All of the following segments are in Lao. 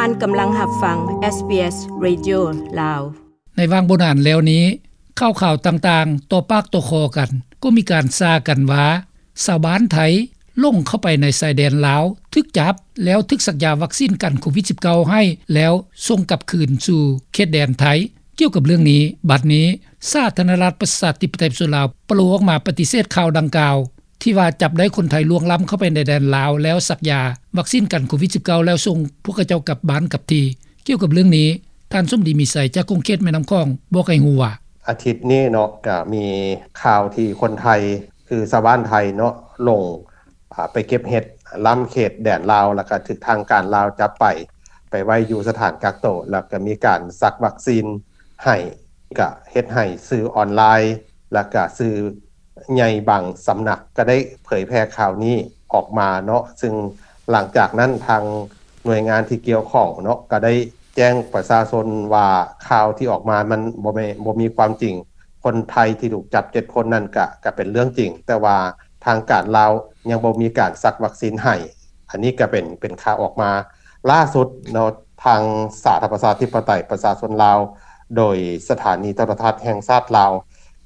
ທ່ານກຳລັງຮັບຟັງ ເອສບີເອສ Radio ລາວ. ໃນຫວ່າງບໍ່ນານແລ້ວນີ້, ຂ່າວໆຕ່າງໆຕໍ່ປາກຕໍ່ຄໍກັນ ກໍມີການສ້າກັນວ່າ ຊາວບ້ານໄທຫຼົງເຂົ້າໄປໃນຊາຍແດນລາວ ຖືກຈັບ ແລ້ວຖືກສັກຢາວັກຊີນກັນໂຄວິດສິບເກົ້າໃຫ້ ແລ້ວສົ່ງກັບຄືນສູ່ເຂດແດນໄທ. ກ່ຽວກັບເລື່ອງນີ້, ບັດນີ້ສາທາລະນະລັດປະຊາທິປະໄຕປະຊາຊົນລາວ ປະໂລອອກມາປະຕິເສດຂ່າວດັ່ງກ່າວ ທີ່ວ່າຈັບໄດ້ຄົນໄທລ່ວງລ້ຳເຂົ້າໄປໃນແດນລາວ ແລ້ວສັກຢາວັກຊີນກັນໂຄວິດສິບເກົ້າ ແລ້ວສົ່ງພວກເຂົາເຈົ້າກັບບ້ານກັບທີ່. ກ່ຽວກັບເລື່ອງນີ້, ທ່ານສົມດີ ມີໄຊ ຈາກຂົງເຂດແມ່ນ້ຳຂອງ ບອກໃຫ້ຮູ້ວ່າ ອາທິດນີ້ເນາະ ກະມີຂ່າວທີ່ຄົນໄທ ຄືຊາວບ້ານໄທເນາະ ຫຼົງ ອາ ໄປເກັບເຫັດລ້ຳເຂດແດນລາວ ແລ້ວກະຖືກທາງການລາວຈັບໄປ ໄປໄວ້ຢູ່ສະຖານກັກໂຕ ແລ້ວກະມີການສັກວັກຊີນໃຫ້ ກະເຮັດໃຫ້ສື່ອອນລາຍ ແລ້ວກະສື່ໃຫຍ່ບາງສຳນັກ ກະໄດ້ເຜີຍແຜ່ຂ່າວນີ້ອອກມາເນາະ. ຊຶ່ງຫຼັງຈາກນັ້ນ ທາງໜ່ວຍງານທີ່ກ່ຽວຂ້ອງເນາະ ກະໄດ້ແຈ້ງປະຊາຊົນວ່າ ຂ່າວທີ່ອອກມາມັນບໍ່ແມ່ນ ບໍ່ມີຄວາມຈິງ. ຄົນໄທທີ່ຖືກຈັບເຈັດຄົນນັ້ນກະ ກະເປັນເລື່ອງຈິງ, ແຕ່ວ່າທາງການລາວຍັງບໍ່ມີການສັກວັກຊີນໃຫ້. ອັນນີ້ກະເປັນ ເປັນຂ່າວອອກມາລ່າສຸດເນາະ. ທາງສາທາລະນະລັດປະຊາທິປະໄຕປະຊາຊົນລາວ ໂດຍສະຖານີໂທລະທັດແຫ່ງຊາດລາວ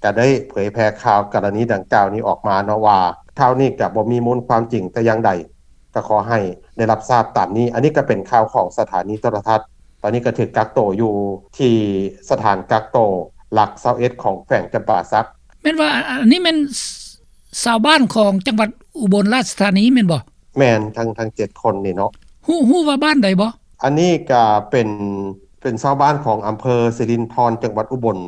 ກະໄດ້ເຜີຍແຜ່ຂ່າວກໍລະນີດັ່ງກ່າວນີ້ອອກມາເນາະ ວ່າຂ່າວນີ້ກະບໍ່ມີມູນຄວາມຈິງແຕ່ຢ່າງໃດ. ກໍຂໍໃຫ້ໄດ້ຮັບຊາບຕາມນີ້. ອັນນີ້ກໍເປັນຂ່າວຂອງສະຖານີໂທລະທັດ. ຕອນນີ້ກໍຖືກກັກໂຕຢູ່ທີ່ສະຖານກັກໂຕຫຼັກຊາວເອັດຂອງແຂວງຈຳປາສັກ. ແມ່ນວ່າ ອັນນີ້ແມ່ນຊາວບ້ານຂອງຈັງຫວັດອຸບົນລາຊະທານີແມ່ນບໍ່? ແມ່ນ, ທັງ ທັງເຈັດຄົນນີ້ເນາະ. ຮູ້ ຮູ້ວ່າບ້ານໃດບໍ່? ອັນນີ້ກໍເປັນ ເປັນຊາວບ້ານຂອງອຳເພີສິລິນທອນ ຈັງຫວັດອຸບົນ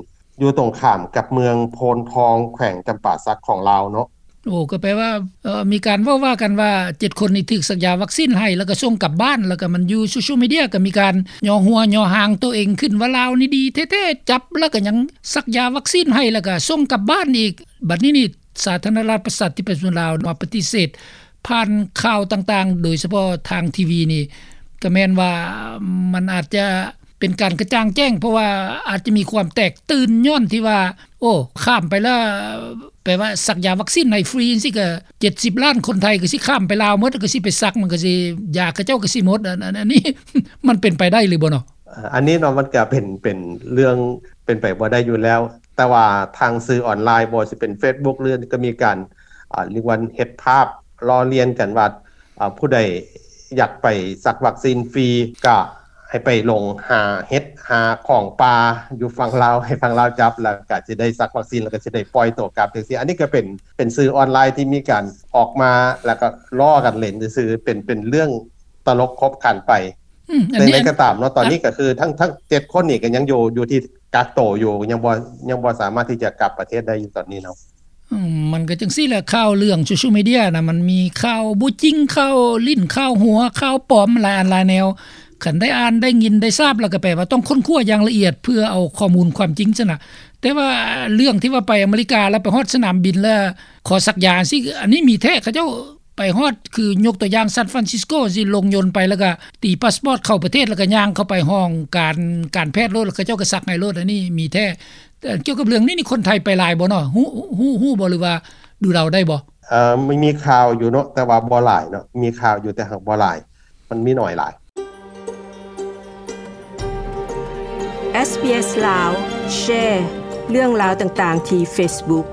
ຢູ່ຕົງຂ້າມກັບເມືອງໂພນທອງ ແຂວງຈຳປາສັກຂອງລາວເນາະ. ໂອ້ ກໍແປວ່າ ເອີ ມີການເວົ້າວ່າກັນວ່າ ເຈັດຄົນນີ້ຖືກສັກຢາວັກຊີນໃຫ້ ແລ້ວກໍສົ່ງກັບບ້ານ ແລ້ວກໍມັນຢູ່ໂຊຊຽວມີເດຍ ກໍມີການຍໍຫົວຍໍຫາງໂຕເອງຂຶ້ນວ່າ ລາວນີ້ດີແທ້ໆ ຈັບແລ້ວກໍຍັງສັກຢາວັກຊີນໃຫ້ ແລ້ວກໍສົ່ງກັບບ້ານອີກ. ບັດນີ້ນີ້ ສາທາລະນະລັດປະຊາທິປະໄຕປະຊາຊົນລາວມາປະຕິເສດ ຜ່ານຂ່າວຕ່າງໆ ໂດຍສະເພາະທາງທີວີນີ້ ກໍແມ່ນວ່າມັນອາດຈະເປັນການກະຈ່າງແຈ້ງ ເພາະວ່າອາດຈະມີຄວາມແຕກຕື່ນ ຍ້ອນທີ່ວ່າ ໂອ້ ຂ້າມໄປແລ້ວ ແປວ່າສັກຢາວັກຊີນໃຫ້ຟຣີຈັ່ງຊີ້ ກໍເຈັດສິບລ້ານຄົນໄທກໍຊິຂ້າມໄປລາວໝົດ ກໍຊິໄປສັກ ມັນກໍຊິ ຢາເຂົາເຈົ້າກໍຊິໝົດ. ອັນ ອັນ ອັນນີ້ມັນເປັນໄປໄດ້ຫຼືບໍ່ເນາະ? ອັນນີ້ເນາະ ມັນກໍເປັນ ເປັນເລື່ອງເປັນໄປບໍ່ໄດ້ຢູ່ແລ້ວ. ແຕ່ວ່າທາງສື່ອອນລາຍ ບໍ່ວ່າຊິເປັນເຟສບຸກ ຫຼື ກໍມີການ ອາ ເອີ້ນວ່າເຮັດພາບລໍ້ລຽນກັນວ່າ ອາ ຜູ້ໃດຢາກໄປສັກວັກຊີນຟຣີ ກະໃຫ້ໄປລົງຫາເຫັດ ຫາຂອງປ່າຢູ່ຝັ່ງລາວ ໃຫ້ຝັ່ງລາວຈັບ ແລ້ວກະຊິໄດ້ສັກວັກຊີນ ແລ້ວກະຊິໄດ້ປ່ອຍໂຕກັບ ຈັ່ງຊີ້. ອັນນີ້ກະເປັນ ເປັນສື່ອອນລາຍທີ່ມີການອອກມາ ແລ້ວກະລໍ້ກັນຫຼິ້ນຊື່ໆ ເປັນ ເປັນເລື່ອງຕະຫຼົກຂົບຂັນໄປ. ອືມ ອັນນີ້ ແຕ່ໃດກໍຕາມເນາະ ຕອນນີ້ກໍຄືທັງ ທັງເຈັດຄົນນີ້ກໍຍັງຢູ່ ຢູ່ທີ່ກັກໂຕຢູ່ ຍັງບໍ່ ຍັງບໍ່ສາມາດທີ່ຈະກັບປະເທດໄດ້ຢູ່ຕອນນີ້ເນາະ. ອືມ ມັນກໍຈັ່ງຊີ້ແຫຼະ ຂ່າວເລື່ອງໂຊຊຽວມີເດຍນະ ມັນມີຂ່າວບໍ່ຈິງ ຂ່າວຫຼິ້ນ ຂ່າວຫົວ ຂ່າວປອມ ຫຼາຍອັນຫຼາຍແນວ. ຄັນໄດ້ອ່ານ ໄດ້ຍິນ ໄດ້ຊາບ ແລ້ວກໍແປວ່າຕ້ອງຄົ້ນຄວ້າຢ່າງລະອຽດ ເພື່ອເອົາຂໍ້ມູນຄວາມຈິງຊັ້ນນະ. ແຕ່ວ່າເລື່ອງທີ່ວ່າໄປອາເມລິກາ ແລ້ວໄປຮອດສະໜາມບິນ ແລ້ວຂໍສັກຢາຊີ້ ອັນນີ້ມີແທ້ ເຂົາເຈົ້າ ໄປຮອດ ຄືຍົກຕົວຢ່າງ ຊານຟຣານຊິສໂກ ຊິລົງຍົນໄປ ແລ້ວກະຕີພາສປອດເຂົ້າປະເທດ ແລ້ວກະຍ່າງເຂົ້າໄປຫ້ອງການ ການແພດໂລດ ແລ້ວເຂົາເຈົ້າກະສັກໃຫ້ໂລດ. ອັນນີ້ມີແທ້. ແຕ່ກ່ຽວກັບເລື່ອງນີ້ນີ້ ຄົນໄທໄປຫຼາຍບໍ່ເນາະ? ຮູ້ ຮູ້ ຮູ້ບໍ່ ຫຼືວ່າດູເດົາໄດ້ບໍ່? ເອີ ມີ ມີຂ່າວຢູ່ເນາະ ແຕ່ວ່າບໍ່ຫຼາຍເນາະ. ມີຂ່າວຢູ່ ແຕ່ຫາກບໍ່ຫຼາຍ ມັນມີໜ້ອຍຫຼາຍ. ເອສບີເອສ ລາວ ແຊເລື່ອງລາວຕ່າງໆທີ່ເຟສບຸກ.